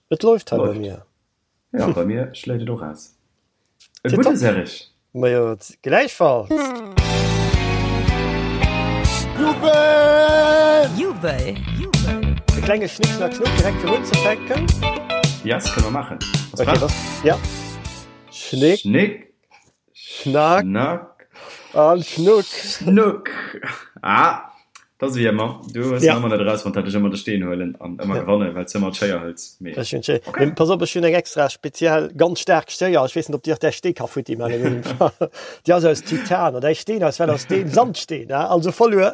Et läuft hei bei mir. Ja, bei mir schléit et och aus. E gudde Serge! Majo, gläichfalls! Jubel! Jubel! E klenge Schnick, Schnack, Schnuck direkt fir unzefänken. Yes, kënne mer maachen. Bass prett? Ja. Schnick. Schnick. Schnack. Schnack. An Schnuck. Schnuck. Ah, dat ass wéi ëmmer. Du hues ja. ëmmer net erausfonnt, dat ech ëmmer de Steen huelen an ëmmer ja. gewannen, well s ëmmer d'Schéier hëls. Mee. Ech hunn d'Schéier. Okay. Mee pass op, ech hunn eng extra speziell ganz staark Schéier. Ech weess net, ob déi och däi Stee ka futti man. Déi ass aus Titan an däi Steen ass well aus Steen, Sandsteen, also verluer.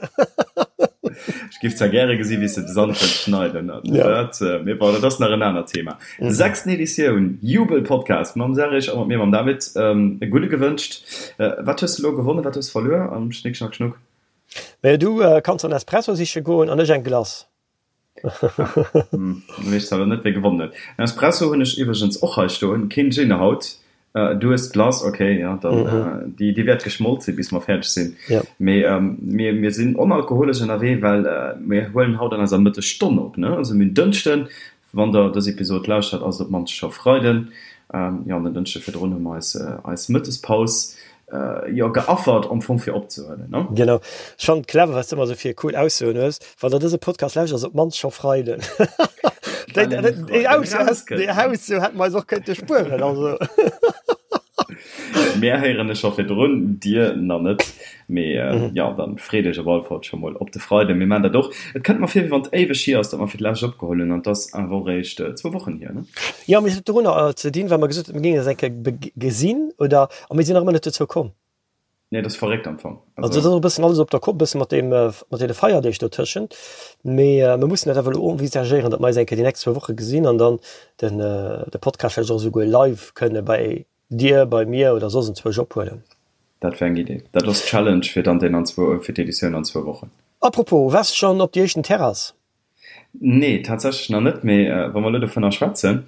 Ech giff zwar gäre gesi wéi s de de Sand wëlls schneiden, ja. dat, äh, mee bon, dat ass nach en anert Thema. Mhm. Sechsten Editioun, Jubel-Podcast mam Serge a mat mir, mam David. Ähm, e gudde gewënscht. Äh, wat hues de lo gewonnen, wat hues de verluer am Schnick, Schnack, Schnuck? Mä du äh, kanns en Espresso siche goen an ech eng Glace. Hm, weess zwar lo net, wie gewonnen huet. En Espresso hunn ech iwwregens och hei stoen, keen Gin haut. Du hues d'Glace, ok, jo, dann déi déi wäert geschmolt sinn, bis mer fäerdeg sinn. Mee mir mir sinn onalkoholesch ënnerwee, well mir huelen haut an eiser Mëttesstonn op, ne? Also mir hunn Dënschden, wann der dës Episod lauschtert, ass et op d'mannst scho Freiden. Jo, an den Dënschde virdrun hu mer eis eis Mëttespaus jo geaffert am Fong fir opzehuelen, ne? Genau. Ech fannen et clever, wat s de ëmmer esou fir cool Aussoen hues. Wann der dëse Podcast lauschtert, ass op d'mannst scho Freiden. Déi, déi, déi Ausso hätte mer eis och kënnte spueren, also. Mär héieren e scho virdrun, dir nach net. Mee jo, dann freet iech op alle Fall scho mol op de Freiden. Mir maan dat och. Et kënnt mer vir, wéi wann et éiweg hier ass, datt mer fir d'lescht opgeholl hunn, an et ass awer och eréischt zwou Wochen hier, ne? Jo, mee et huet dorunner ze dinn, well mer gesot hunn, mir géingen eis eng Kéier gesinn, oder? A mir sinn nach ëmmer net dozou komm. Nee, dat ass verréckt am Fong. Also dat ass och e bëssen alles op der Kopp, e bësse mat deem, mat deene Feierdeeg dotëschent. Mee mir mussen dat awer elo envisagéieren, datt mer eis eng Kéier déi nächst zwou Woche gesinn an dann den, de Podcast vläicht och esouguer live kënne bei dir, bei mir oder soss enzwousch ophuelen. Dat wär eng Idee. Dat ass d'Challenge fir dann deen an zwou, fir d'Editioun an zwou Wochen. Apropos, waars de schonn op déi éischten Terrass? Nee, tatsächlech nach net. Mee wa mer elo dovunner schwätzen,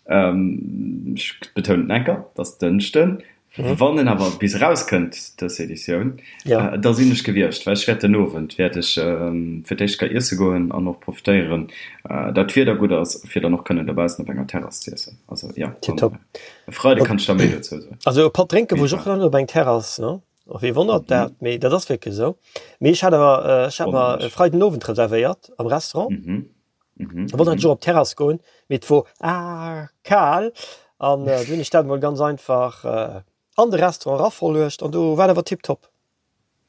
ech betounen et enker, et ass Dënschden, wann en awer bis erauskënnt, dës Editioun, da sinn ech gewiescht, well ech wäert den Owend wäert ech fir d'éischt ka iesse goen an och profitéieren, dat d'Wieder gutt ass, fir dann och kënnen dobaussen op enger Terrass z'iessen. Also jo, dann e Freide kann ech da méi dozou soen. Also e Patt drénke wor ech och nach net op eng Terrass, ne? Och wee wonnert dat, mee dat ass wierklech esou. Mee ech hat awer, ech hat mer e Freiden Owend reservéiert am Restaurant. Da wollt ech och op d'Terrass goen, mee et wor kal an du hunn ech dat emol ganz einfach an de Restaurant eraverluecht an do war et awer tiptop.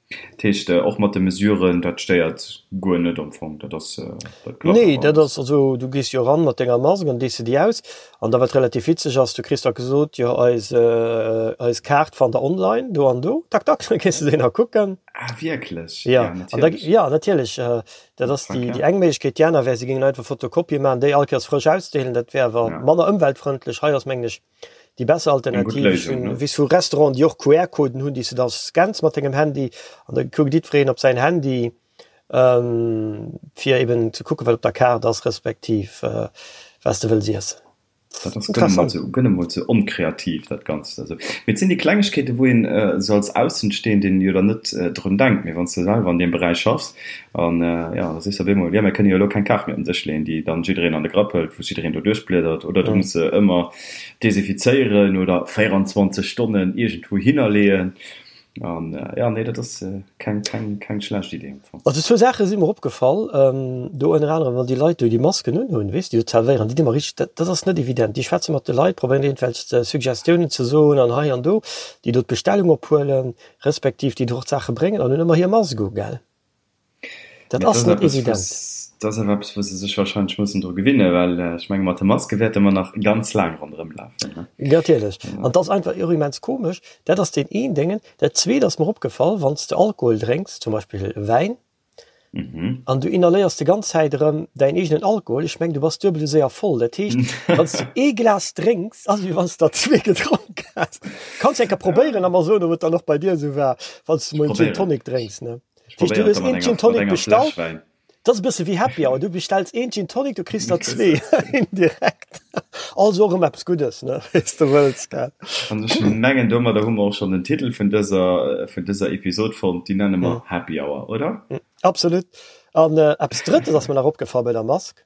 Dat heescht och mat de Mesuren, dat stéiert guer net am Fong, dat ass, dat klappt Nee, dat ass, also du gees jo eran mat denger Mask an dees de déi aus an da wat relativ witzeg ass, du kriss da gesot, jo eis eis Kaart fannt der online do an do, tak tak, da gees de déi nach kucken. Ah wierklech? Ja, an da, ja natierlech, dat ass déi déi eng Méiglechkeet. Déi aner wär, se géingen einfach Fotokopië maachen, déi all Kéiers frësch ausdeelen, dat wär awer manner ëmweltfrëndlech. Hei ass mengen ech déi besser Alternativ. Ech hunn, weess vu Restauranten, déi och QR-Coden hunn, déi s de da scanns mat dengem Handy an da kuckt jiddwereen op säin Handy, fir eben ze kucken, wat op der Kaart ass, respektiv wat s de wëlls iessen. Dat ass gënn emol ze, gënn emol ze onkreativ, dat Ganzt. Also, mee et sinn déi Klengegkeeten, wou een esou als Aussenstehenden jo dann net drun denkt. Mee wann s de selwer an deem Beräich schaffs an, jo, da sees de op eemol, jo, mir kënne jo elo keng Kaart méi op den Dësch leeën, déi dann jiddereen an de Grapp hëlt, wou jiddereen do duerchbliedert, oder du muss se ëmmer desinfizéieren oder 24 Stonnen iergendwou hinnerleeën. An jo, nee, dat ass keng, keng, keng schlecht Idee am Fong. Also zwou Saache si mer opgefall, do ënner anerem, wann déi Leit do déi Masken unhunn, weess de, déi do zerwéieren, déi di mer richteg, dat, dat ass net evident. Déi schwätze mat de Leit, probéieren iergendwelch Suggestiounen ze soen an hei an do, déi do d'Bestellung ophuelen, respektiv déi do och d'Saache bréngen an hunn ëmmer hir Mask u, gell? Dat ass net evident. Dat ass awer eppes, wou se sech warscheinlech mussen dru gewinnen, well ech menge mat de Maske wäerte mer nach ganz laang ronderëm lafen. Natierlech. An et ass einfach och immens komesch. Dat ass deen een Déngen. Dat zweet ass mer opgefall, wann s de Alkohol drénks, zum Beispill Wäin, an du inhaléiers déi ganz Zäit erëm däin eegenen Alkohol, ech meng du bass duebel esou séier voll. Dat heescht, wann s du ee Glas drénks, ass et wéi wann s der zwee gedronk häss. Kanns eng Kéier probéieren a mer soen, ob et dann och bei dir esou war, wann s du mol en Gin Tonic drénks, ne? Heescht, du hues een Gin Tonic bestallt, dat ass e bësse wéi Happy Hour, du bestells een Gin Tonic, du kriss der zwee indirekt. Also och ëmmer eppes Guddes, ne, wéi s de wëlls, gell. An ech mengen, domadder hu mer och schonn den Titel vun dëser, vun dëser Episod fonnt, déi nenne mer Happy Hour, oder? Absolut. An eppes Drëttes ass mer nach opgefall bei der Mask.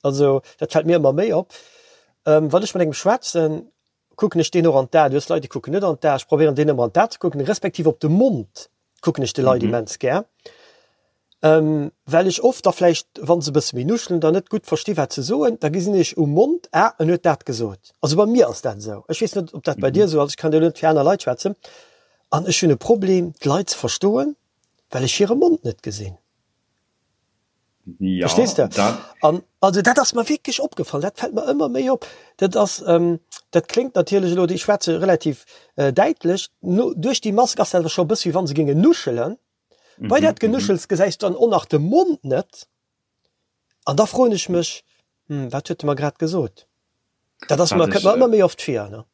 Also dat fält mir ëmmer méi op. Wann ech mat engem schwätzen, kucken ech deen och an d'Aen. Du hues Leit, déi kucken net an d'Aen. Ech probéieren deen ëmmer an d'Aen ze kucken, respektiv op de Mond kucken ech de Leit immens gär, well ech oft da vläicht, wa se e bësse méi nuschelen, dann net gutt versti wat se soen. Da gesinn ech um Mond, ah, en huet dat gesot. Also bei mir ass dat esou. Ech weess net, ob dat bei dir esou ass. Ech kann jo elo net fir aner Leit schwätzen. An ech hunn e Problem, d'Leit ze verstoen, well ech hire Mond net gesinn. Ja, Verstees de? dat. An also dat ass mer wierklech opgefall, dat fält mer ëmmer méi op. Dat ass, dat kléngt natierlech elo, ech schwätze relativ däitlech, no duerch déi Mask ass dat awer scho e bësse wéi wa se géingen nuschelen. Bei dat Genuschels gesäis du dann och nach de Mond net. An da froen ech mech, Hm, wat huet e mer grad gesot? Dat ass mer, kënnt mer ëmmer méi oft vir, ne?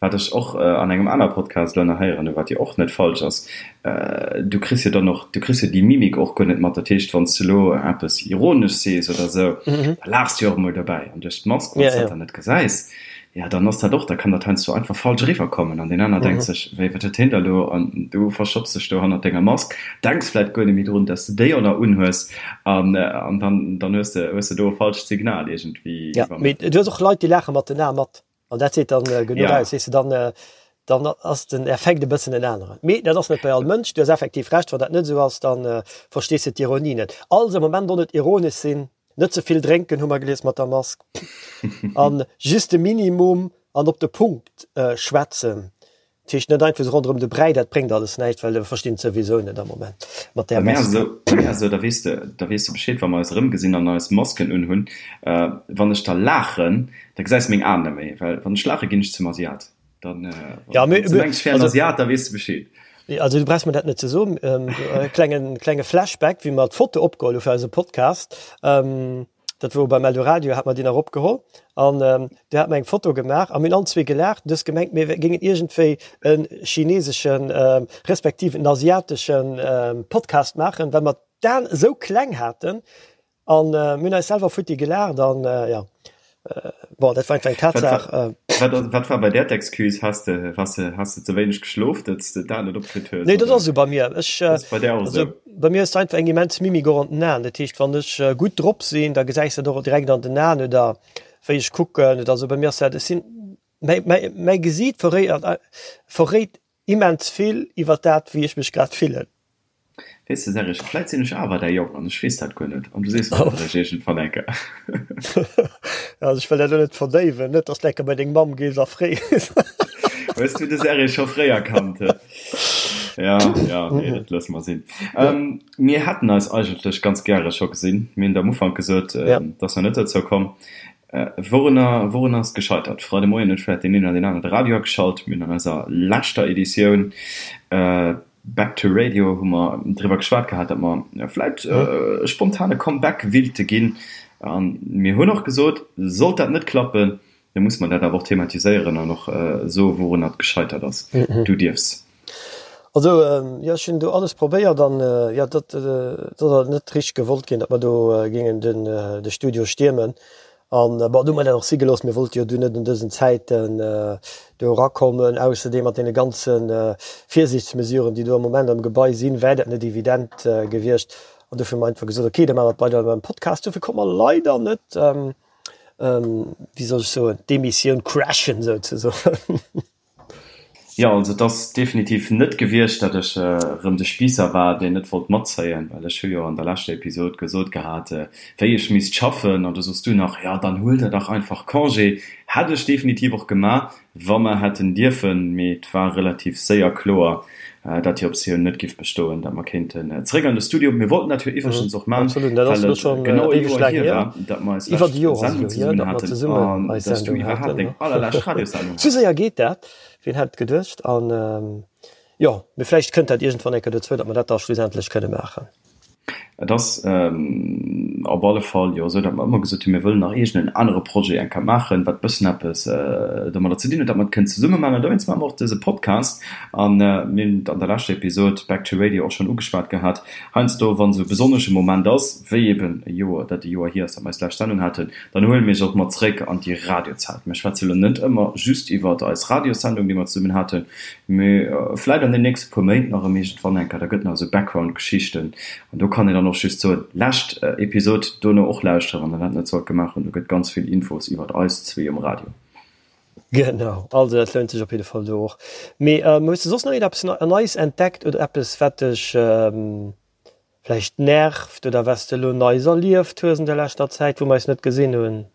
Wat ech och an engem aner Podcast elo nach héieren hu, wat jo och net falsch ass, du kriss jo dann och, du kriss jo déi Mimik och guer net mat. Dat heescht, wann s du elo eppes ironesch sees oder esou, da laachs du jo och emol dobäi. An duerch d'Mask, wann s dat dann net gesäis, jo, dann ass dat och, da kann dat heiansdo einfach falsch eriwwerkommen an deen aner denkt sech, wéi, wat huet hien da elo? An du verstopps dech do hannert denger Mask, denks vläit guer net méi drun, dass du déi och nach unhues an dann, dann hues de, hues de do e falscht Signal iergendwéi Jo, mee iwwermëttelt. du hues och Leit, déi laache mat den Ae mat. An dat seet dann genuch Ja. aus, weess de, dann, dann ass den Effekt e bëssen en aneren. Mee dat ass net bei all Mënsch. Du hues effektiv Recht, wann dat net esou ass, da verstees de d'Ironie net. Also am Moment och net ironesch sinn, net ze vill drénken, hu mer gelies mat der Mask, an just de Minimum an op de Punkt schwätzen. Dat heescht net einfach esou ronderëm de Bräi, dat bréngt alles näischt, well e verstinn et souwisou net am Moment mat där Bei mir ass Mask. esou, bei mir ass esou, da weess de, da weess de Bescheed, wa mer eis erëmgesinn an eis Masken unhunn, wann ech da laachen, da gesäis de meng Aen net méi, well wann ech laache ginn ech zum Asiat. Dann, Ja, wann s de mengs, ech wär en Asiat, da weess de Bescheed. Also du brauchs mer dat net ze soen. Klengen, klenge Flashback, wéi mer d'Foto opgeholl hu fir eise Podcast. Dat wor beim Eldoradio, hat mer déi nach opgeholl an do hat mer eng Foto gemaach a mir hunn allen zwee gelaacht. Du hues gemengt, mir géingen iergendwéi e chineseschen, respektiv en asiateschen Podcast maachen, well mer d'Aen esou kleng haten an mir hunn eis selwer futti gelaacht an jo, bon, dat war einfach eng Tatsaach. Wat, wat war bei där d'Excuse? Has de, has de, has de ze wéineg geschlof, datt s de d'Aen net opkritt hues? Nee, dat ass esou bei mir. Ech, Ass bei där och also esou? bei mir ass einfach eng immens Mimik och an den Aen. Dat heescht, wann ech gutt drop sinn, da gesäis de dat och direkt an den Aen oder wéi ech kucken oder esou. Bei mir ass dat, ech sinn, mäi, mäi, mäi Gesiit verréit, verréit immens vill iwwer dat, wéi ech mech grad fillen. Weess de Serge, vläit sinn ech awer däi Jong an ech weess dat guer net an du sees mer dat eréischt iergendwann eng Kéier. Also ech wëll dat elo net verdéiwen, net dass de eng Kéier bei deng Mamm gees a frees. Hues du de Serge scho fréier kannt? Ja, ja, nee, dat loosse mer sinn. Mir hätten eis eigentlech ganz gäre scho gesinn. Mir hunn et am Ufank gesot, et ass nach net dozou komm. Wourunner, wourunner ass et gescheitert? Freide Moien huet vläit deen een oder deen anere de Radio ageschalt. Mir hunn an eiser leschter Editioun Back to Radio hu mer driwwer geschwat gehat, datt mer vläit e spontane Comeback willte ginn. A mir hunn och gesot, sollt dat net klappen, da musse mer dat awer och thematiséieren an och soe wourunner et gescheitert ass. Du dierfs. Also jo, ech hunn do alles probéiert an jo, dat ass net richteg gewollt ginn, datt mer do géingen de Studio stiermen. An bon, du hu mer dat och si gelooss, mir wollte jo du net an dësen Zäiten do erakommen. Ausserdeem mat deene ganze Virsiichtsmesuren, déi do am Moment am Gebai sinn, wär dat net evident gewiescht. An dofir hu mer einfach gesot, okay, da maache mer et weider beim Podcast. Dofir konnt mer leider net, wéi soll ech soen, d'Emissioun crashen souzesoen. Jo, also et ass definitiv net gewiescht, datt ech erëm de Spiisser war, deen net wollt matzéien, well ech hu jo an der leschter Episod gesot gehat, wéi ech misst schaffen, an du soss du nach, jo dann huel der dach einfach Congé. Hätt ech definitiv och gemaach, wa mer hätten dierfen, mee et war relativ séier kloer, datt déi Optioun net giff bestoen, datt mer kéinten zeréck an de Studio. Mir wollten dat jo iwwregens och man, Absolut, dat ass well elo et schonn genau e éiweg Joer laang hier hier, war, datt mer eis iwwer lescht e Joer ass et Sendung elo hier, zesummen datt mer haten zesummen an eis datt s du Sendung iwwerhaapt haten. deng allerlescht Radiossendung Sou haas. séier geet dat, wien hätt et geduecht? An jo, mee vläicht kënnt dat iergendwann eng Kéier dozou, datt mer dat da schlussendlech kënne maachen. Et ass op alle Fall jo esou, datt mer ëmmer gesot hunn, mir wëllen nach iergend en anere Projet eng Kéier maachen, wat e bëssen eppes domadder ze dinn huet, datt mer et kënnen zesumme maachen. An dowéinst maache mer och dëse Podcast. An mir hunn et an der leschter Episod Back to Radio och schonn ugeschwat gehat, heiansdo, wann esou e besonnesche Moment ass, wéi eben e Joer, dat e Joer hier ass, datt mer eis lescht Sendung haten, dann huele mir iech och mat zréck an déi Radiozäit. Mir schwätze lo net ëmmer just iwwert eis Radiossendung, déi mer zesummen haten, Mee vläit an den nächste puer Méint nach erëm iergendwann eng Kéier, da gëtt nach esou Background-Geschichten an do kann een dann. dann och just soen, lescht Episod dono och lauschteren, wann der dat net sollt gemaach hunn. Do gëtt ganz vill Infos iwwert eis zwee um Radio. Genau, also dat lount sech op jidde Fall do och. Mee hues de soss nach iergendeppes Neies entdeckt oder eppes wat dech vläicht nervt oder wat s de elo Neies erlieft hues an der leschter Zäit, wou mer eis net gesinn hunn?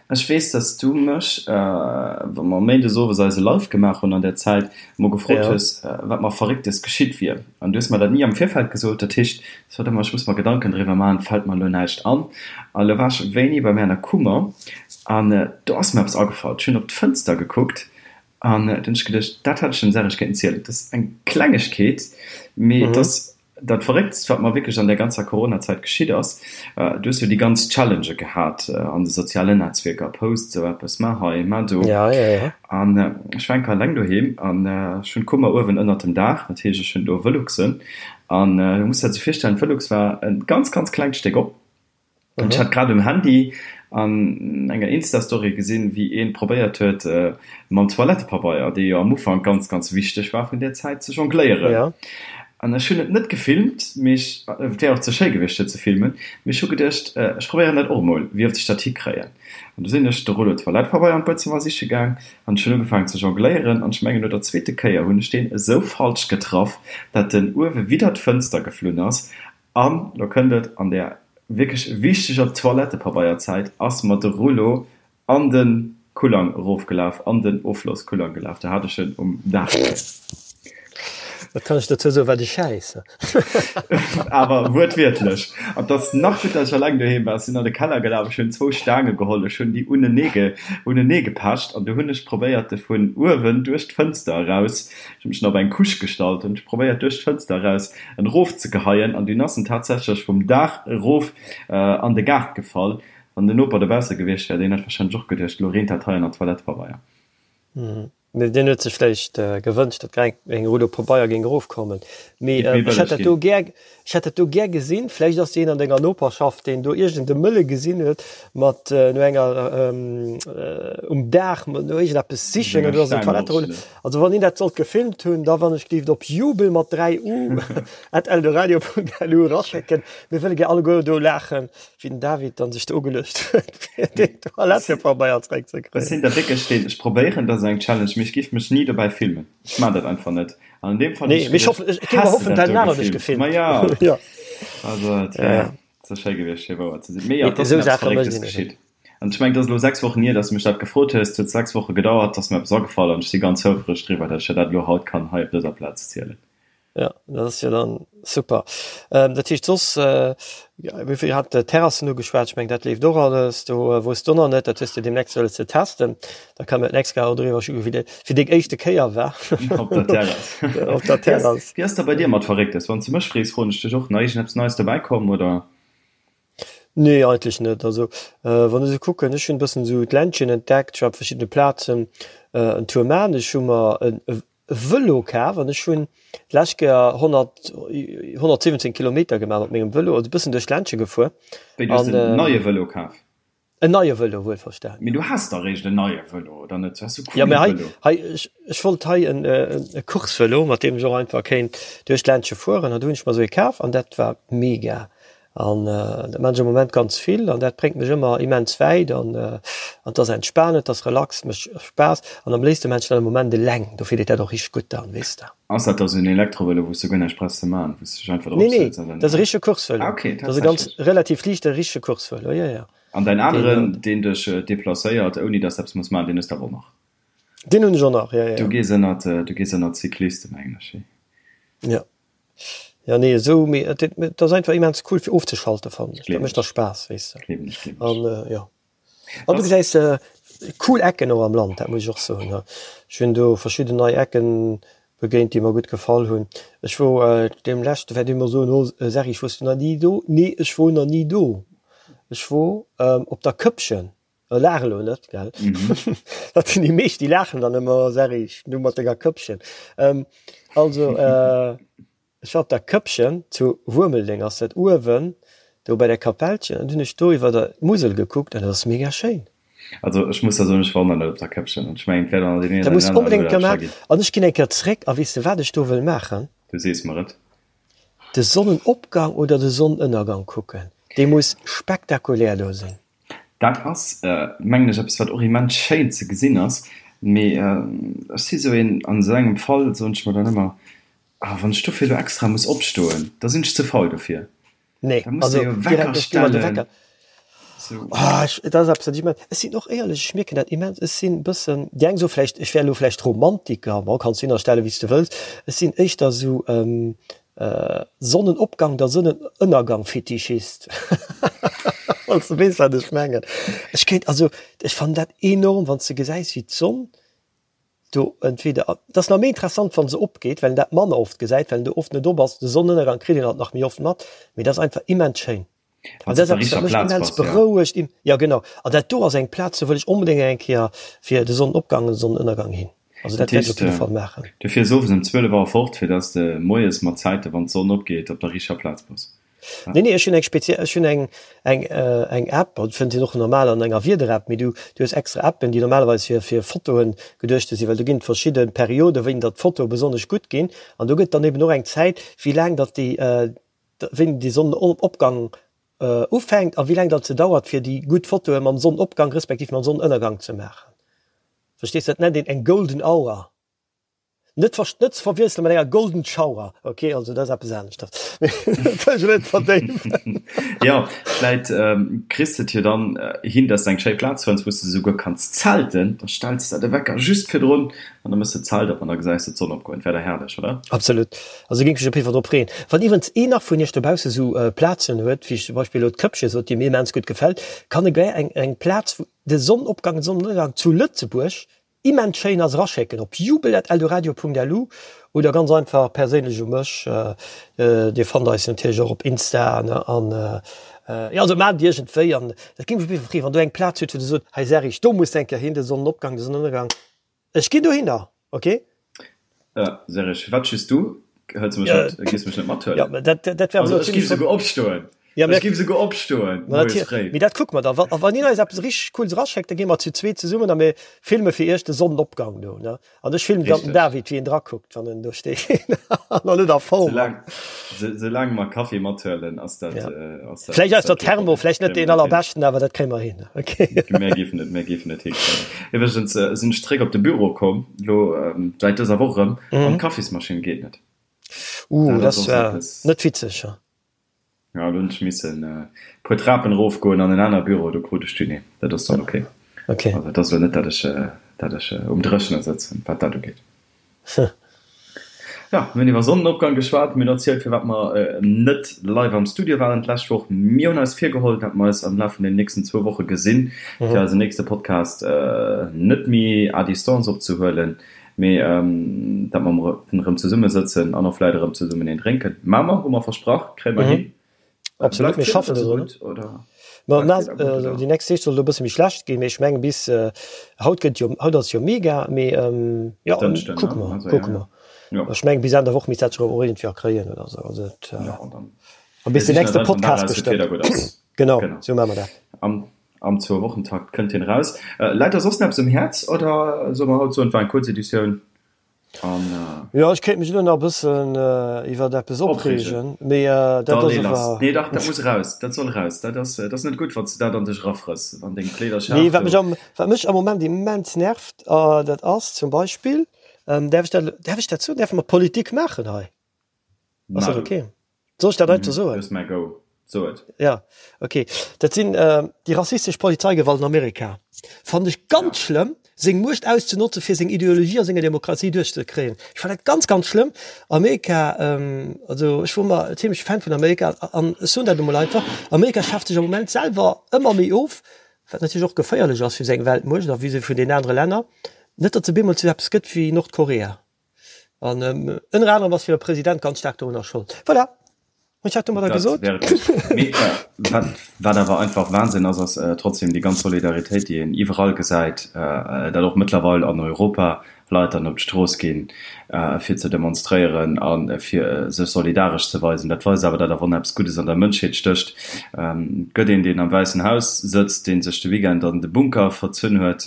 Ech weess, dass du mech, wa mer méindes owes eise Live gemaach hunn an der Zäit, emol gefrot hues, wat mer Verrécktes geschitt wier. An du hues mer dat ni am Virfeld gesot. Dat heescht, ech sot ëmmer, ech muss mer Gedanken driwwer maachen, et fält mer elo näischt an. A lo war ech wéini bei mir an der Kummer an do ass mer eppes agefall. Ech hunn op d'Fënster gekuckt an du hunn ech geduecht, dat hätt ech dem Serge kéinten zielen. Dat ass eng Klengegkeet, mee et ass Dat Verrécktst, wat mer wierklech an där ganzer Coronazäit geschitt ass, du hues jo déi ganz Challengë gehat an de sozialen Netzwierker, post esou eppes, maach hei, maach do. An ech war eng Kéier eleng doheem an ech hunn d'Kummer uewen ënnert dem Daach, dat heescht, ech hunn do Veluxen. An du muss der dat esou virstellen, d'Velux war e ganz, ganz klengt Stéck op. An ech hat grad um Handy an enger Insta-Story gesinn, wéi een probéiert huet, mam Toilettepabeier, dee jo am Ufank ganz, ganz wichteg war vun där Zäit, ze jongléieren. An ech hunn et net gefilmt, mee ech, et wär och ze schéi gewiescht fir ze filmen, mee ech hu geduecht, ech probéieren dat och emol, wéi oft ech dat hikréien. An du sinn ech de Rouleau Toilettepabeier an d'Buedzëmmer siche gaang an ech hunn ugefaangen ze jongléieren an ech mengen no der zweete Kéier hunn ech deen esou falsch getraff, dat en uewe widder d'Fënster geflunn ass An lo kënnt et, an där wierklech wichteger Toilettepabeierzäit ass mer de Rouleau an de Kullang erofgelaf, an den Offlosskullang gelaf. Do hat ech en um Daach leien. Wat kann ech dozou soen? Wat e Schäiss! Awer wuertwiertlech. An et ass nach gutt, datt ech alleng doheem war. Ech sinn an de Keller gelaf, ech hunn zwou Staange geholl, ech hunn déi unenee unenee gepecht an du hunn ech probéiert, de vun uewen duerch d'Fënster eraus, ech hunn mech dann op eng Couche gestallt, hunn ech probéiert duerch d'Fënster eraus en erof ze geheien an dunn ass en tatsächlech vum Daach erof an de Gaart gefall. Wann den Noper dobausse gewiescht wär, deen hätt wahrscheinlech och geduecht, elo reent dat hei an der Toilettepabeier. Mee deen huet sech vläicht gewënscht, datt grad eng Rullo Pabeier géing erofkommen. Mee ech hätt dat do gär, ech hätt dat do gär gesinn. Vläicht ass deen an denger Noperschaft, deen do iergend e Mëlle gesinn huet mat no enger um Daach no iergendeppes sichen oder ass en Toiletterullo. Also wann een dat sollt gefilmt hunn, da wann ech géif op jubel mat 3 u at eldoradio.lu eraschécken. Mir wëlle gär alleguer do laachen, wéi den David dann sech do ugeluecht huet, fir deen Toilettepabeier zeréckzekréien. Ech sinn da wierklech deen, ech probéieren, dat ass eng Challenge, mee ech géif mech ni dobäi filmen. Ech maan dat einfach net. An an deem Fall hunn ech geduecht, häss de dat do gefilmt? Ma jo. Also et wär ze schéi gewiescht, fir wouer ze sinn. Mee jo, et ass mir eppes Verrécktes geschitt. An ech mengen, et ass elo 6 Wochen hier, dass du mech dat gefrot hues. Et huet 6 Woche gedauert, et ass mir eppes agefall an ech si ganz houfreg driwwer, dass ech der dat elo haut kann hei op dëser Plaz zielen. Jo, dat ass jo dann super. Dat heescht soss, mir hat d'Terrassen ugeschwat, ech mengen dat leeft och alles. Do wou s du nach net, dat hues de deemnächst wëlles ze testen, da kann mir d'nächst Kéier och driwwer schwätzen, wéi dat fir deng éischte Kéier war. Op der Terrass. Op der Terrass. Wéi ass da bei dir mat Verrécktes? Wann s du mech frees, froen ech dech och nach, iergendeppes Neies dobäi komm, oder? Nee, eigentlech net. Also wann ech esou kucken, ech hunn e bëssen esou d'Ländchen entdeckt, ech war op verschiddene Plazen en Tour man. Ech hu mer e Vëlo kaf an ech hunn d'lescht Kéier 100, 117 Kilometer gemaach mat mengem Vëlo, also e bëssen duerch d'Ländche gefuer. Wéi, du hues en neie Vëlo kaf? En neie Vëlo, wuelverstanen. Mee du has dach eréischt en neie Vëlo, oder net? Du has e coole Vëlo. Jo, mee hei, hei, ech, ech wollt hei en, e Coursevëlo, mat deem ech och einfach kéint duerch d'Ländche fueren. An du hunn ech mer esou ee kaf an dat war mega. An dat maan ech am Moment ganz vill an dat bréngt mech ëmmer immens wäit an, an 't ass entspanend, 't ass relax, mécht Spaass an am léifste maan ech dat am Moment eleng. Dofir deet dat och richteg gutt dann, weess de. Ass dat da sou en Elektrovëlo, wou s du guer näischt brauchs ze maan, wou s du dech einfach drop Nee, nee, sëtz an dann. dat ass e richtege Coursevëlo. Ah, okay, Dat ass e ganz tatsächlech. relativ liichte richtege Coursevëlo, jo, jo. An däin aneren, deen dech deplacéiert, ouni dass de eppes muss maachen, deen hues de awer och nach? Deen hunn ech och nach, jo, jo. Du gees ënnert, du gees ënnert d'Cyclisten, mengen ech, hé? Jo. Jo, nee, esou, mee et, et ass einfach immens cool fir ofzeschalten, fannen ech. Dat mécht da Spaass, weess de. Gleewen ech, gleewen ech. An, jo. An du gesäis cool Ecken och am Land, dat muss ech och soen. Ech hunn do verschidden nei Ecken begéint, déi mer gutt gefall hunn. Ech wor deem leschte, wäert ee mer soen, oh Serge, wors du nach ni do? Nee, ech wor nach ni do. Ech wor op der Këppchen. Laach elo net, gell? Dat sinn déi meescht, déi laachen dann ëmmer, Serge, du mat denger Këppchen. Also. Ech war op der Këppchen, zu Wuermeldeng ass dat, uewen do bei der Kapellchen, an hunn ech do iwwer der Musel gekuckt an dat ass mega schéin. Also ech muss der soen, ech war och nach net op der Këppchen an ech mengen et wäert an deem een oder aneren Urlaub scho ginn. An ech ginn eng Kéier zréck a weess de wat ech do wëll maachen? Du sees mer et. de Sonnenopgang oder de Sonnenënnergang kucken. Dee muss spektakulär do sinn. Dat ass, mengen ech, eppes wat och immens schéin ze gesinn ass. Mee ech si sou een, an esou engem Fall soen ech mer dann ëmmer, Ah, wann ech dofir elo extra muss opstoen, da sinn ech ze faul dofir. Nee, Da muss de also jo direkt, Wecker ech gi mer de stellen. Wecker. Sou. Ah, ech, dat ass eppes, wat ech immens, ech sinn och éierlech, ech mierken dat immens, ech sinn e bëssen, déi eng soe vläicht, ech wär elo vläicht Romantiker, bon, kanns du hinnerstellen, wéi s de wëlls, ech sinn éischter esou Sonnenopgang der Sonnenënnergang-Fetischist, wann s de weess, wat ech mengen. Ech kéint, also ech fannen dat enorm, wann s de gesäis, wéi d'Sonn do entweder, et ass nach méi interessant, wa se opgeet, well een dat manner oft gesäit, well een do oft net op ass. De Sonnenënnergang kritt een alt nach méi oft mat, mee dat ass einfach immens schéin. An Wann s dat op ass der eppes, wat richter mech Plaz immens bass, ja. berouegt. Jo, genau. An dat do ass eng Plaz, do wëll ech onbedéngt eng Kéier fir de Sonnenopgang an de Sonnenënnergang hin. Also Dat dat wäert ech op heescht, jidde Fall maachen. du fiers owes ëm 12 Auer fort, fir dass de moies mat Zäite, wann d'Sonn opgeet, op der richter Plaz bass. Ja. Nee, nee, ech hunn eng speziell, ech hunn eng, eng, eng App, also fënnt een och normal an enger Wieder-App, mee du, du hues extra Appen, déi normalerweis fir, fir Fotoen geduechte sinn, well do ginn et verschidde Perioden, wéini datt d'Fotoe besonnesch gutt ginn. An do gëtt dann eben och eng Zäit, wéi laang datt déi, wéini de Sonnenopgang ufänkt a wéi laang datt se dauert, fir déi gutt Fotoe mam Sonnenopgang respektiv mam Sonnenënnergang ze maachen. Verstees? Dat nennt een eng Golden Hour. Net ver, net ze verwiessele mat enger Golden Shower, ok? Also dat ass eppes aneschters. Mee dat wëll ech elo net verdéiwen. Jo, vläit kriss de et jo dann hin, dass de eng schéi Plaz fënns, wou s de souguer kanns zelten. Da stells de de Wecker just virdrun an da méchs de d'Zelt op an da gesäis de d'Sonn opgoen. Dat wär da herrlech, oder? Absolut. Also géing ech mech op jidde Fall drop freeën. Wann iwwerens een nach vun iech dobausse sou Plazen huet, wéi ech zum Beispill elo d'Këppche sot, déi mir immens gutt gefält, kann e gär eng eng Plaz, wou de Sonnenopgang, de Sonnenënnergang zu Lëtzebuerg immens schéin ass, eraschécken op jubel@eldoradio.lu oder ganz einfach perséinlech u mech. Dir fannt eis natierlech och op Insta an jo, also maacht et iergendwéi an dat géing mech op jidde Fall freeën, wann do eng Plaz hutt, wou der sot, hei Serrig, do muss de eng Kéier hin, de Sonnenopgang, de Sonnenënnergang. Ech ginn dohinner, ok? Ja, Serge, firwat just du? Hëls du mech net, gees mech net mathuelen? Ja, dat, dat wär Also ech géif souguer opstoen. Ja, Ech géif souguer opstoen, moies fréi. Mee dat kucke mer dann. Wa, wann een eis eppes richteg Cooles eraschéckt, da gi mer zu zweet zesummen a mir filme fir iech de Sonnenopgang do, ne? An ech filmen dann den David, wéi en drakuckt, wann en do steet an nach net a Form ass. Soulaang mer Kaffi mathuelen, ass dat, ass dat. Vläicht aus der Thermo, vläicht net deen allerbeschten, awer dat kréie mer hin. Ok. Mir géifen et, mir géifen et hikréien. Iwwregens sinn ech zréck op de Büro komm, elo säit dëser Woch erëm, an d'Kaffismaschinn geet net. Uh, dat ass net witzeg. Jo, do hunn ech missen e puer Trapen erofgoen an en aner Büro, do krut ech dunn een. Dat ass dann ok. Ok. Also et ass elo net, datt ech, datt ech um Dréchene sëtzen, wat dat ugeet. Jo, mir hunn iwwer Sonnenopgang geschwat, mir hunn erzielt, firwat mer net live am Studio waren d'lescht Woch. Mir hunn eis virgeholl, datt mer eis am Laf vun den nächsten zwou Woche gesinn, fir eisen nächste Podcast net méi à distance opzehuelen. Mee dat mer erëm zesumme sëtzen an och vläit erëm zesummen een drénken, maa mer, hu mer versprach, kréie mer hin. Absolut, mir schaffen dodrun. Ma déi nächst Deeg soll et e bësse méi schlecht ginn, mee ech mengen bis haut gëtt jo, haut ass jo mega, mee jo, kucke mer, kucke mer. Ech mengen bis Enn der Woch misst dat sech erëm och iergendwéi erkréien oder esou. Also et, a bis den nächste Podcast bestëmmt. Genau, esou maache mer dat. Am Zwou-Wochen-Takt kënnt hien eraus. Läit der soss nach eppes um Häerz oder solle mer haut soen, et war eng kuerz Editioun an. Jo, ech kéint mech elo nach e bëssen iwwert eppes opreegen, mee dat ass awer. Nee, dach, dat muss eraus, dat soll eraus. Dat ass, dat ass net gutt, wann s de dat an dech erafrëss, wann deng Kleederschaf do. Nee, wat mech am, wat mech am Moment immens nervt, dat ass zum Beispill, däerf ech dat, däerf ech dat soen, däerfe mer Politik maachen hei? Ass dat ok? Soll ech dat einfach soen? Du hues mäi Go. So et. Ja, ok. Dat sinn déi rassistesch Polizeigewalt an Amerika. Fannen ech ganz schlëmm, seng Muecht auszenotzen, fir seng Ideologie a senger Demokratie duerchzekréien. Ech fannen dat ganz, ganz schlëmm. Amerika, also ech wor ëmmer zimlech Fan vun Amerika an ech soen dat emol einfach, Amerika schaaft sech am Moment selwer ëmmer méi of, wat natierlech och geféierlech ass fir seng Weltmuecht a vis-à-vis vun den anere Länner, net datt se bemol zu eppes gëtt wéi Nordkorea. An ënner anerem ass hire President ganz staark dorunner Schold. Voilà, hunn ech dat domadder gesot. Mee wat, wat awer einfach Wahnsinn ass, ass trotzdem déi ganz Solidaritéit, déi een iwwerall gesäit, dat och mëttlerweil an Europa. Leit dann op d'Strooss ginn, fir ze demonstréieren a fir sech solidaresch ze weisen. Dat weist awer, datt awer och eppes Guddes an der Mënschheet stécht. Et gëtt een, deen am Wäissen Haus sëtzt, dee sech de Weekend an de Bunker verzunn huet,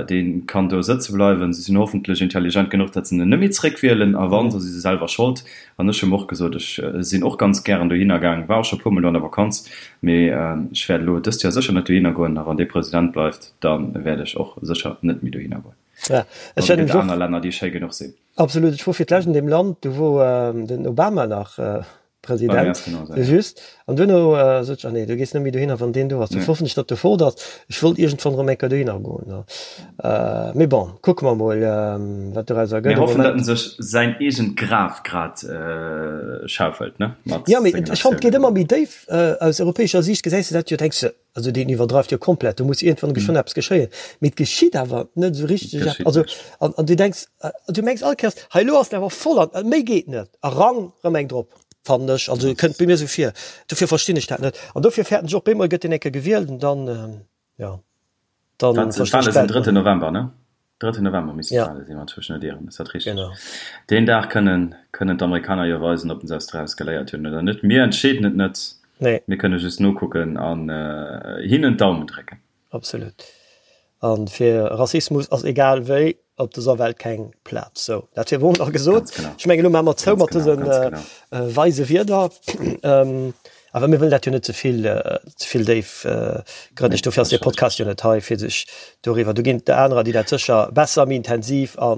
dee kann do sëtze bleiwen. Si sinn hoffentlech intelligent genuch, datt se en net méi zréckwielen, a wann, da si se selwer Schold. An ech hu mer och gesot, ech sinn och ganz gären dohinner gaang, war och scho e puermol do an der Vakanz, mee ech wäert elo dëst Joer sécher net dohinner goen. A wann dee President bleift, da wäert ech och sécher net méi dohinner goen. Ja, ech An et gëtt aner Länner, déi schéi genuch sinn. Absolut. Ech wor fir d'lescht an deem Land, do wor den Obama nach President, just. An duerno sot ech, ah nee, du gees net méi dohinner, wann deen do ass. Dofir hoffen ech, datt e fort ass. Ech wollt iergendwann erëm eng Kéier dohinner goen. Mee bon, kucke mer mol, wat dorauser gëtt. Mir hoffen, datt en sech säin eegent Graf grad schaufelt, ne? Mat Ja, mee ech fannen, et geet ëmmer méi déif. Aus europäescher Siicht gesäis de dat jo, denks de, Also deen iwwerdreift jo komplett, do muss iergendwann geschwënn eppes geschéien. Mee et geschitt awer net esou richteg eppes. Also an, an du denks, du mengs all Kéiers, hei elo ass en awer voll an méi geet net. A rang, rëm eng drop, fannen ech. Also kënnt bei mir esou vir. Dofir verstinn ech dat net. An dofir fäerten ech och, bemol gëtt deen eng Kéier gewielt an dann, jo, dann verstinn ech d'Welt net méi. Drëtten November, ne? Drëtten November missten ja. d'Wale sinn, wann ech mech net ieren. Ass dat richteg? Genau. Deen Dag kënnen, kënnen d'Amerikaner jo weisen, ob se eppes draus geléiert hunn oder net. Mir entscheeden et net. Nee. Mir kënne just nokucken an äh, hinnen d'Daumen drécken. Absolut. An fir Rassismus ass egal wéi op dëser Welt keng Plaz. Sou, dat wier wohl nach gesot. Ganz genau. Ech mengen, elo maache mer zou Ganz mat genau, dësen ganz äh, genau. äh, weise Wierder. Ähm, Awer mir wëllen dat jo net ze vill, ze vill déif grënneg. Dofir ass dee Podcast jo net hei, fir sech doriwwer. Do ginn et der anerer, déi dat sécher besser, méi intensiv a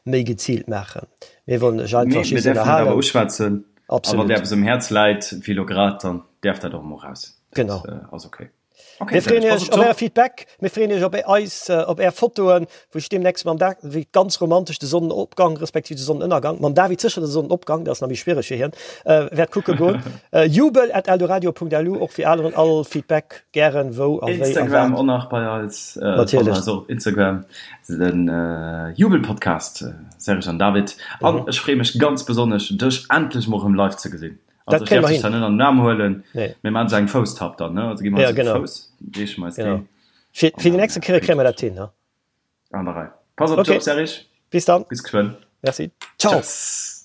méi geziilt maachen. Mir wëllen lech einfach just ënnerhalen. Mir däerfen et awer uschwätzen. A wann Absolut. där eppes um Häerz läit, wéi elo grad, dann däerf dat och emol raus. Genau. Dat ass okay. Mir freeën iech op är Feedback, mir freeën iech op eis, op är Fotoen, wou ech deemnächst mam Da, wéi ganz romantesch de Sonnenopgang respektiv de Sonnenënnergang, mam David sécher de Sonnenopgang, dat ass nach méi schwiereg fir hien, wäert kucke goen. Jubel at eldoradio.lu och fir aneren, all Feedback gären, wou a wéi a wat. Instagram och nach bei eis, Natierlech. fannt eis och op Instagram, den Jubelpodcast, Serge an David. An ech freeë mech ganz besonnesch dech endlech mol erëm live ze gesinn. Dat Also ech kréie däerf mer dech hin. dann net an den Aarm huelen, Nee. mir maachen esou eng Fousstapp dann, ne? Also gi mer Ja, eis op de genau. Fouss, reeche mer eis Genau. deen Fir, an fir déi dann nächste Kéier kréie mer dat hin, ne? An der Rei. Pass op dech Okay. op, Serge. Bis dann. Bis geschwënn. Merci. Ciao. Tschüss.